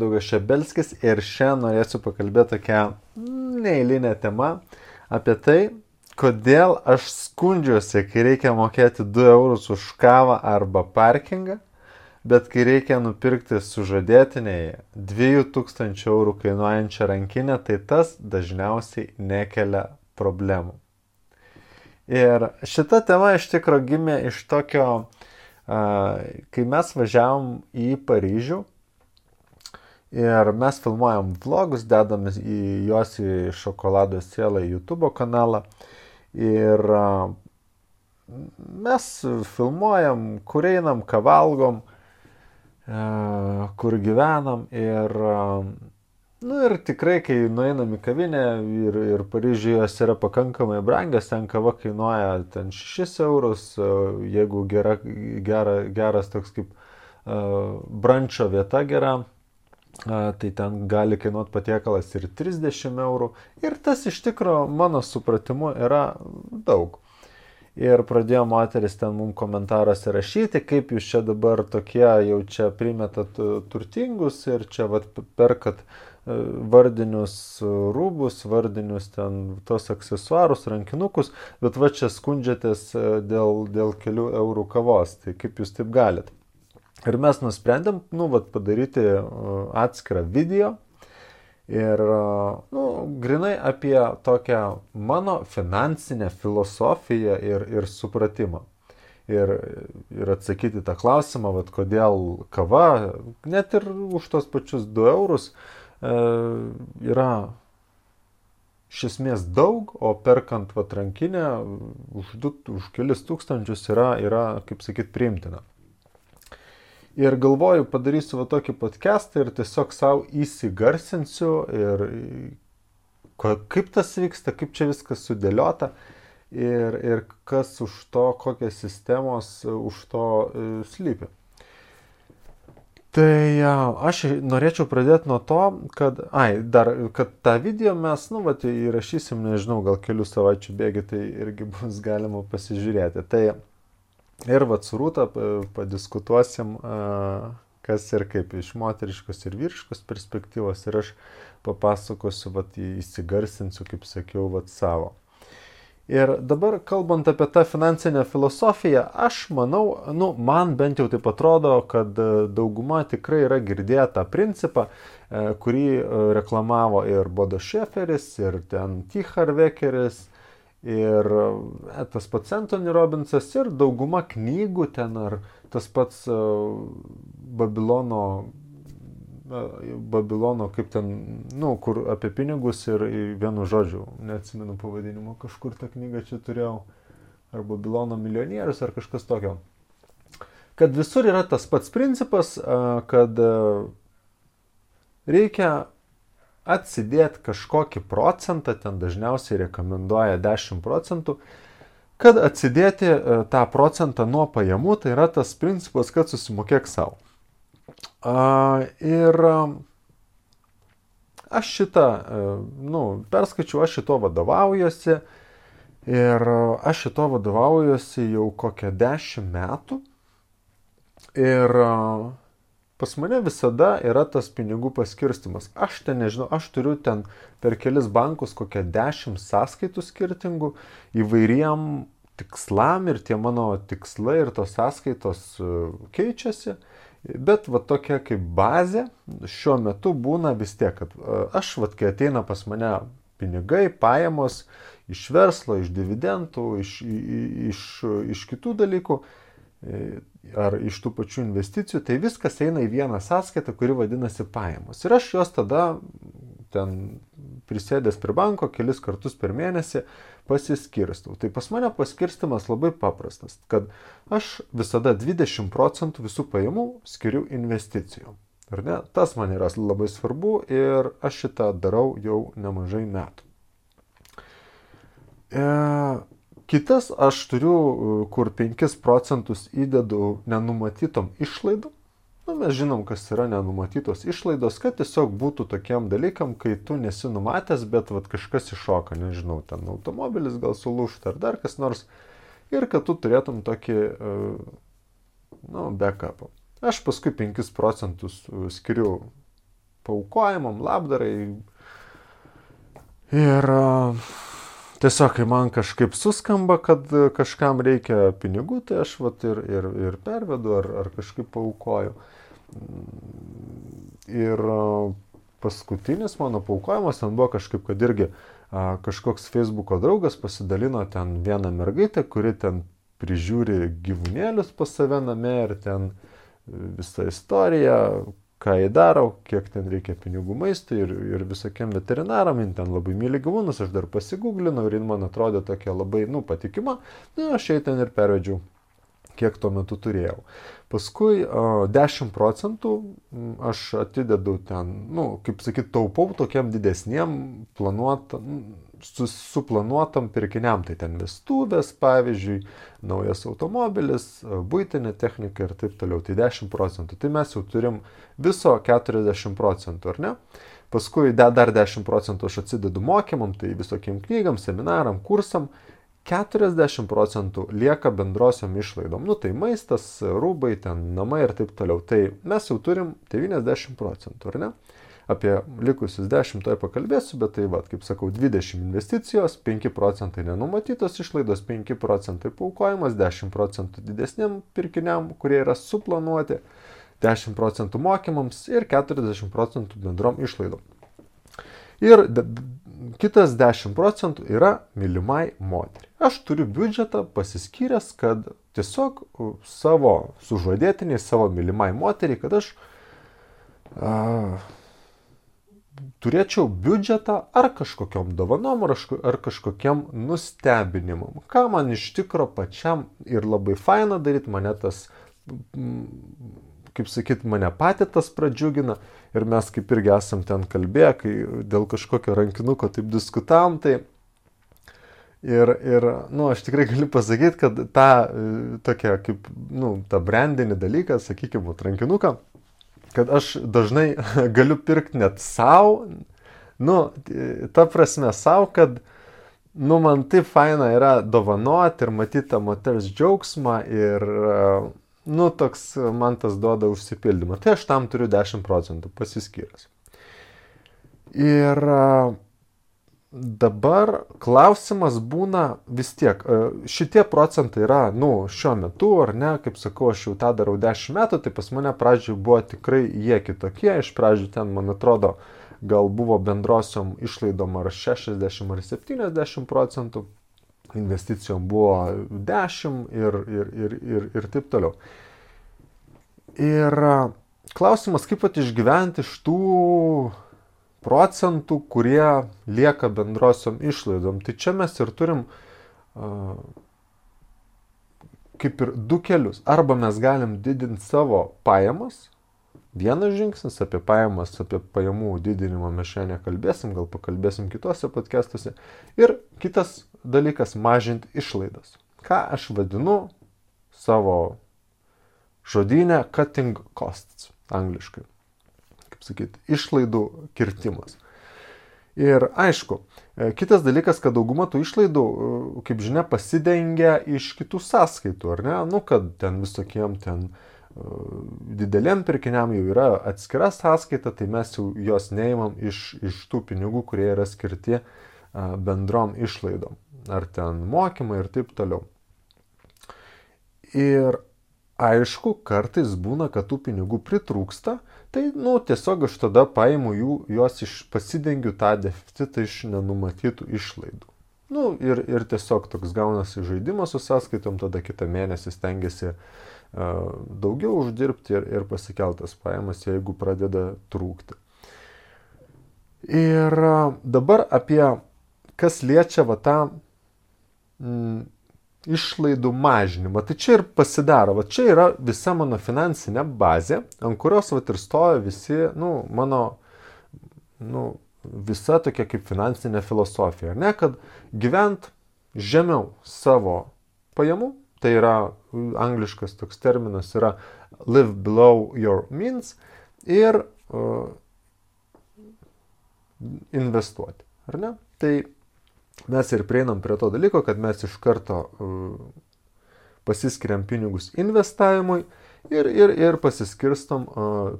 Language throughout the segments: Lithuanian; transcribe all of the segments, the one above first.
Daugašebelskis ir šiandien norėsiu pakalbėti tokią neeilinę temą apie tai, kodėl aš skundžiuosi, kai reikia mokėti 2 eurus už kavą arba parkingą, bet kai reikia nupirkti sužadėtiniai 2000 eurų kainuojančią rankinę, tai tas dažniausiai nekelia problemų. Ir šita tema iš tikro gimė iš tokio, kai mes važiavom į Paryžių, ir mes filmuojam vlogus, dedam juos į Šokolado sielą YouTube kanalą. Ir mes filmuojam, kur einam, ką valgom, kur gyvenam. Ir tikrai, kai nueinam į kavinę ir Paryžiuje jos yra pakankamai brangios, ten kava kainuoja ten 6 eurus, jeigu geras toks kaip brančo vieta gera, tai ten gali kainuoti patiekalas ir 30 eurų. Ir tas iš tikro mano supratimu yra daug. Ir pradėjo moteris ten mums komentaruose rašyti, kaip jūs čia dabar tokie jau čia primetat turtingus ir čia perkat vardinius rūbus, vardinius ten tos aksesuarus, rankinukus, bet čia skundžiatės dėl kelių eurų kavos. Tai kaip jūs taip galit? Ir mes nusprendėm, padaryti atskirą video ir, grinai apie tokią mano finansinę filosofiją ir supratimą. Ir atsakyti tą klausimą, kodėl kava, net ir už tos pačius 2 eurus, yra iš esmės daug, o perkant rankinę už kelis tūkstančius yra, kaip sakyt, priimtina. Ir galvoju, padarysiu tokį podcastą ir tiesiog savo įsigarsinsiu ir kaip tas vyksta, kaip čia viskas sudėliota ir kas už to, kokios sistemos už to slypi. Tai aš norėčiau pradėti nuo to, kad tą video mes, įrašysim, nežinau, gal kelių savaičių bėgi, tai irgi bus galima pasižiūrėti. Tai ir su Rūta padiskutuosim, kas ir kaip iš moteriškos ir vyriškos perspektyvos, ir aš papasakosiu, įsigarsinsiu, kaip sakiau, savo. Ir dabar, kalbant apie tą finansinę filosofiją, aš manau, man bent jau taip atrodo, kad dauguma tikrai yra girdėję tą principą, kurį reklamavo ir Bodo Šeferis, ir ten T. Harv Ekeris, ir tas pats Anthony Robbinsas, ir dauguma knygų ten, ar tas pats Babilono, kaip ten, kur apie pinigus ir vienu žodžiu, neatsimenu pavadinimo, kažkur tą knygą čia turėjau, ar Babilono milijonierius, ar kažkas tokio. Kad visur yra tas pats principas, kad reikia atsidėti kažkokį procentą, ten dažniausiai rekomenduoja 10 procentų, kad atsidėti tą procentą nuo pajamų, tai yra tas principas, kad susimokėk savo. Ir aš šitą, perskaičiu, aš šito vadovaujuosi ir aš šito vadovaujuosi jau kokią 10 metų ir pas mane visada yra tas pinigų paskirstimas. Aš ten nežinau, aš turiu ten per kelis bankus kokią 10 sąskaitų skirtingų įvairiem tikslam ir tie mano tikslai ir tos sąskaitos keičiasi. Bet tokia kaip bazė šiuo metu būna vis tiek, kad aš, kai ateina pas mane pinigai, pajamos iš verslo, iš dividendų, iš kitų dalykų, ar iš tų pačių investicijų, tai viskas eina į vieną sąskaitą, kuri vadinasi pajamos. Ir aš jos tada ten prisėdęs prie banko kelis kartus per mėnesį pasiskirstau. Tai pas mane paskirstimas labai paprastas, kad aš visada 20 procentų visų pajamų skiriu investicijom. Ar ne? Tas man yra labai svarbu ir aš šitą darau jau nemažai metų. Kitas aš turiu, kur 5 procentus įdedu nenumatytom išlaidom. Mes žinom, kas yra nenumatytos išlaidos, kad tiesiog būtų tokiam dalykam, kai tu nesi numatęs, bet kažkas iššoka, nežinau, ten automobilis gal sulūžta ar dar kas nors, ir kad tu turėtum tokį, backupą. Aš paskui 5 procentus skiriu paaukojimam, labdarai. Ir tiesiog, kai man kažkaip suskamba, kad kažkam reikia pinigų, tai aš vat ir pervedu ar kažkaip paaukoju. Ir paskutinis mano paaukojimas ten buvo kažkaip, kad irgi kažkoks Facebooko draugas pasidalino ten vieną mergaitę, kuri ten prižiūri gyvūnėlius pas save name ir ten visą istoriją, ką jie daro, kiek ten reikia pinigų maistui ir visokiem veterinaram, jin ten labai myli gyvūnus, aš dar pasigūglinau ir jin man atrodė tokia labai, patikima, aš jai ten ir pervedžiau, kiek tuo metu turėjau. Paskui 10% aš atidedu ten, kaip sakyt, taupau tokiam didesniem suplanuotam pirkiniam, tai ten vestuvės, pavyzdžiui, naujas automobilis, buitinė technika ir taip toliau, tai 10%. Tai mes jau turim viso 40%, ar ne? Paskui dar 10% aš atsidedu mokymam, tai visokiem knygam, seminaram, kursam. 40% lieka bendrosiom išlaidom. Tai maistas, rūbai, ten namai ir taip toliau. Tai mes jau turim 90%, ar ne? Apie likusius 10 toj pakalbėsiu, bet tai kaip sakau, 20 investicijos, 5% nenumatytos išlaidos, 5% paaukojimas, 10% didesniam pirkiniam, kurie yra suplanuoti, 10% mokymams ir 40% bendrom išlaidom. Ir kitas 10% yra mylimai moteriai. Aš turiu biudžetą pasiskyręs, kad tiesiog savo sužadėtiniai, savo mylimai moteriai, kad aš turėčiau biudžetą ar kažkokiom dovanom, ar kažkokiam nustebinimam. Ką man iš tikro pačiam ir labai faina daryti, mane tas, kaip sakyt, mane patį tas pradžiugina. Ir mes kaip irgi esam ten kalbėję, kai dėl kažkokio rankinuko taip diskutavom, tai aš tikrai galiu pasakyti, kad tą tokia kaip, tą brandinį dalyką, sakykime, rankinuką, kad aš dažnai galiu pirkti net savo, ta prasme savo, kad, man taip faina yra dovanoti ir matyti tą moters džiaugsmą ir toks man tas duoda užsipildymą. Tai aš tam turiu 10% pasiskyręs. Ir dabar klausimas būna vis tiek. Šitie procentai yra, šiuo metu, ar ne, kaip sakau, aš jau tą darau 10 metų, tai pas mane pradžioj buvo tikrai jie kitokie. Iš pradžių ten, man atrodo, gal buvo bendrosiom išlaidom ar 60 ar 70%. Investicijom buvo 10 ir taip toliau. Ir klausimas, kaip išgyventi iš tų procentų, kurie lieka bendrosiom išlaidom. Tai čia mes ir turim kaip ir du kelius. Arba mes galim didinti savo pajamas. Vienas žingsnis apie pajamas, apie pajamų didinimą mes šiandien nekalbėsim, gal pakalbėsim kitose podcastuose. Ir kitas dalykas - mažinti išlaidas. Ką aš vadinu savo žodyne cutting costs, angliškai. Kaip sakyti, išlaidų kirtimas. Ir aišku, kitas dalykas, kad dauguma tų išlaidų, kaip žinia, pasidengia iš kitų sąskaitų, ar ne? Kad ten visokiem ten dideliem pirkiniam jau yra atskira sąskaita, tai mes jau jos neimam iš tų pinigų, kurie yra skirti bendrom išlaidom. Ar ten mokymai ir taip toliau. Ir aišku, kartais būna, kad tų pinigų pritrūksta, tai tiesiog aš tada paimu juos pasidengiu tą deficitą iš nenumatytų išlaidų. Ir tiesiog toks gaunasi žaidimas su sąskaitom, tada kitą mėnesį stengiasi daugiau uždirbti ir pasikeltas pajamas, jeigu pradeda trūkti. Ir dabar apie kas liečia tą išlaidų mažinimą. Tai čia ir pasidaro. Čia yra visa mano finansinė bazė, ant kurios ir stoja visi, mano, visa tokia kaip finansinė filosofija. Ne, kad gyvent žemiau savo pajamų, tai yra angliškas toks terminas yra live below your means ir investuoti. Ar ne? Tai mes ir prieinam prie to dalyko, kad mes iš karto pasiskiriam pinigus investavimui ir pasiskirstom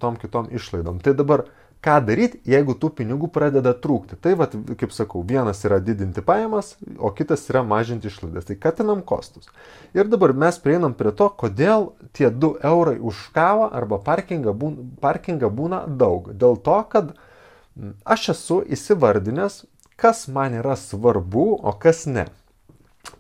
tom kitom išlaidom. Tai dabar ką daryti, jeigu tų pinigų pradeda trūkti. Tai, vat, kaip sakau, vienas yra didinti pajamas, o kitas yra mažinti išlaidas. Tai katinam kostus. Ir dabar mes prieinam prie to, kodėl tie 2 eurai už kavą arba parkingą būna daug. Dėl to, kad aš esu įsivardinęs, kas man yra svarbu, o kas ne.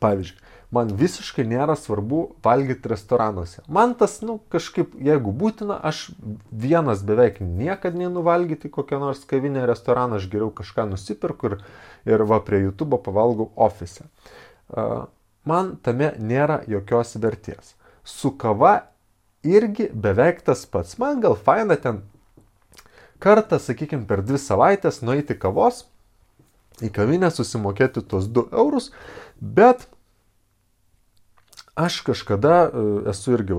Pavyzdžiui, man visiškai nėra svarbu valgyti restoranuose. Man tas, kažkaip, jeigu būtina, aš vienas beveik niekada neinu valgyti kokią nors kavinę restoraną, aš geriau kažką nusipirku ir va prie YouTube pavalgau ofise. Man tame nėra jokios vertės. Su kava irgi beveik tas pats. Man gal faina ten kartą, sakykime, per 2 savaitės nueiti kavos į kavinę, susimokėti tos 2 eurus, bet aš kažkada esu irgi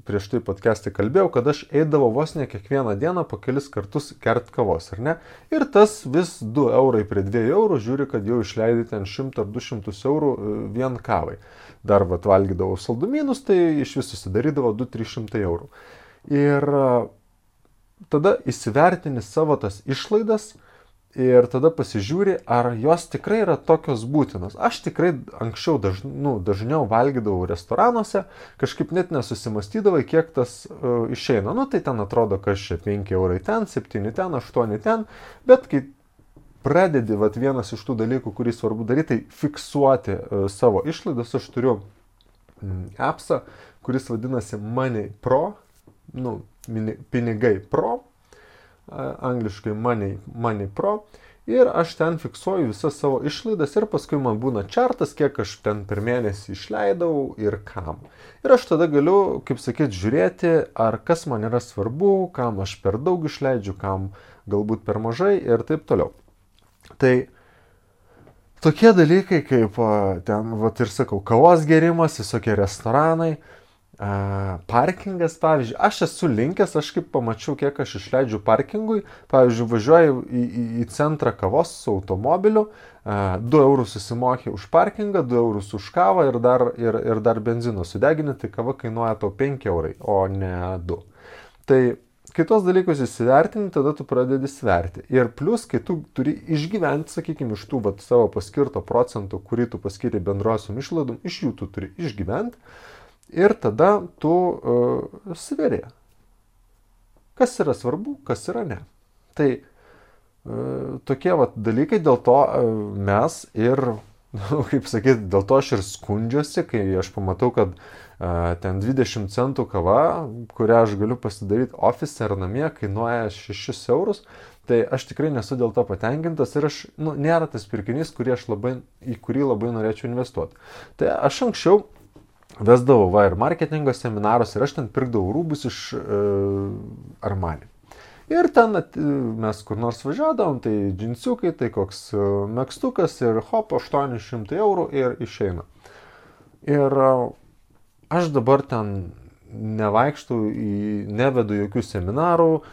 prieš tai podcast'e kalbėjau, kad aš eidavau vos ne kiekvieną dieną po kelis kartus gert kavos, ar ne? Ir tas vis 2 eurai prie 2 eurų, žiūri, kad jau išleidai ten 100 ar 200 eurų vien kavai. Dar valgydavau saldumynus, tai iš vis susidarydavo 200-300 eurų. Ir tada įsivertini savo tas išlaidas ir tada pasižiūri, ar jos tikrai yra tokios būtinos. Aš tikrai anksčiau dažniau valgydavau restoranuose, kažkaip net nesusimastydavai, kiek tas išeina. Tai ten atrodo, kad čia 5 eurai ten, 7 ten, 8 ten, bet kai pradedi vienas iš tų dalykų, kurį svarbu daryti, tai fiksuoti savo išlaidas. Aš turiu appsą, kuris vadinasi Money Pro, pinigai Pro, angliškai Money Pro, ir aš ten fiksuoju visas savo išlaidas ir paskui man būna čartas, kiek aš ten per mėnesį išleidau ir kam. Ir aš tada galiu, kaip sakyt, žiūrėti, ar kas man yra svarbu, kam aš per daug išleidžiu, kam galbūt per mažai ir taip toliau. Tai tokie dalykai kaip ten, ir sakau, kavos gerimas, visokie restoranai, parkingas, pavyzdžiui, aš esu linkęs, aš kaip pamačiau, kiek aš išleidžiu parkingui, pavyzdžiui, važiuoju į centrą kavos su automobiliu, 2 eurus susimokė už parkingą, 2 eurus už kavą ir dar benzino sudegini, tai kava kainuoja tau 5 eurai, o ne 2. Tai kitos dalykus įsivertini, tada tu pradedi sverti. Ir plus, kai tu turi išgyventi, sakykime, iš tų savo paskirto procentų, kurį tu paskiri bendrosiom išlaidom, iš jų tu turi išgyventi. Ir tada tu sveri, kas yra svarbu, kas yra ne. Tai tokie dalykai, dėl to mes ir, kaip sakyti, dėl to aš ir skundžiuosi, kai aš pamatau, kad ten 20 centų kava, kurią aš galiu pasidaryti ofise ar namie, kainuoja 6 eurus, tai aš tikrai nesu dėl to patenkintas ir aš, nėra tas pirkinys, į kurį labai norėčiau investuoti. Tai aš anksčiau vesdavau ir marketingo seminarus ir aš ten pirkdavau rūbus iš Armani. Ir ten mes kur nors važiuodavom, tai džinsiukai, tai koks megztukas ir hop, 800 eurų ir išeina. Ir aš dabar ten nevaikštau, nevedu jokių seminarų,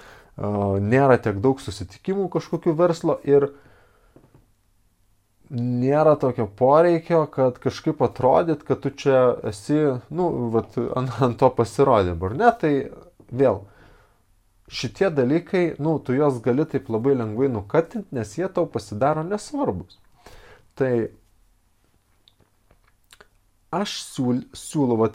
nėra tiek daug susitikimų kažkokių verslo ir nėra tokio poreikio, kad kažkaip atrodyt, kad tu čia esi, ant to pasirodymų, ar ne? Tai vėl, šitie dalykai, tu juos gali taip labai lengvai nukatinti, nes jie tau pasidaro nesvarbus. Tai aš siūlau,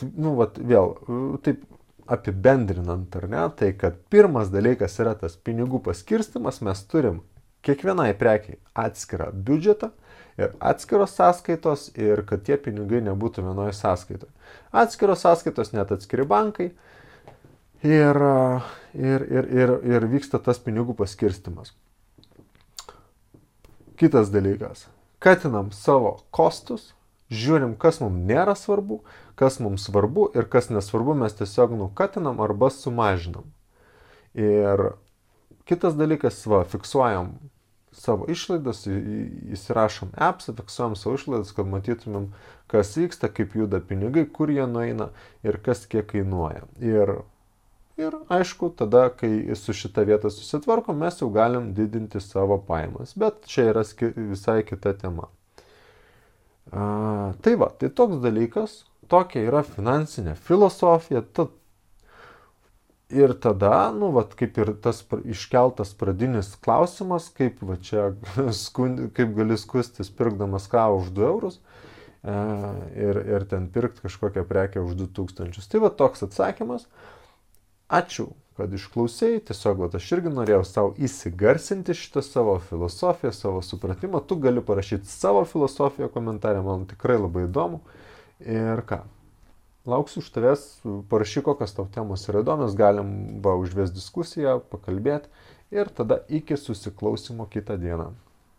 vėl, taip apibendrinant, ar ne, tai kad pirmas dalykas yra tas pinigų paskirstimas, mes turim kiekvienai prekiai atskirą biudžetą, ir atskiros sąskaitos, ir kad tie pinigai nebūtų vienoje sąskaitoje. Atskiros sąskaitos, net atskiri bankai, ir vyksta tas pinigų paskirstimas. Kitas dalykas. Katinam savo kostus, žiūrim, kas mums nėra svarbu, kas mums svarbu ir kas nesvarbu, mes tiesiog nukatinam arba sumažinam. Ir kitas dalykas, fiksuojam savo išlaidas, įsirašom appsą, fiksuojam savo išlaidas, kad matytumėm, kas vyksta, kaip juda pinigai, kur jie nueina ir kas kiek kainuoja. Ir aišku, tada, kai su šita vieta susitvarkom, mes jau galim didinti savo pajamas. Bet čia yra visai kita tema. Tai toks dalykas, tokia yra finansinė filosofija. Ir tada, nu, vat, kaip ir tas iškeltas pradinis klausimas, kaip va čia, kaip gali skustis pirkdamas kavą už 2 eurus ir ten pirkti kažkokią prekę už 2000. Tai va toks atsakymas. Ačiū, kad išklausėjai. Tiesiog va, aš irgi norėjau savo įsigarsinti šitą savo filosofiją, savo supratimą. Tu gali parašyti savo filosofiją komentarę, man tikrai labai įdomu. Ir ką? Lauksiu iš tavęs, parašyk, kokios tau temos yra įdomios, galim užvesti diskusiją, pakalbėti ir tada iki susiklausimo kitą dieną.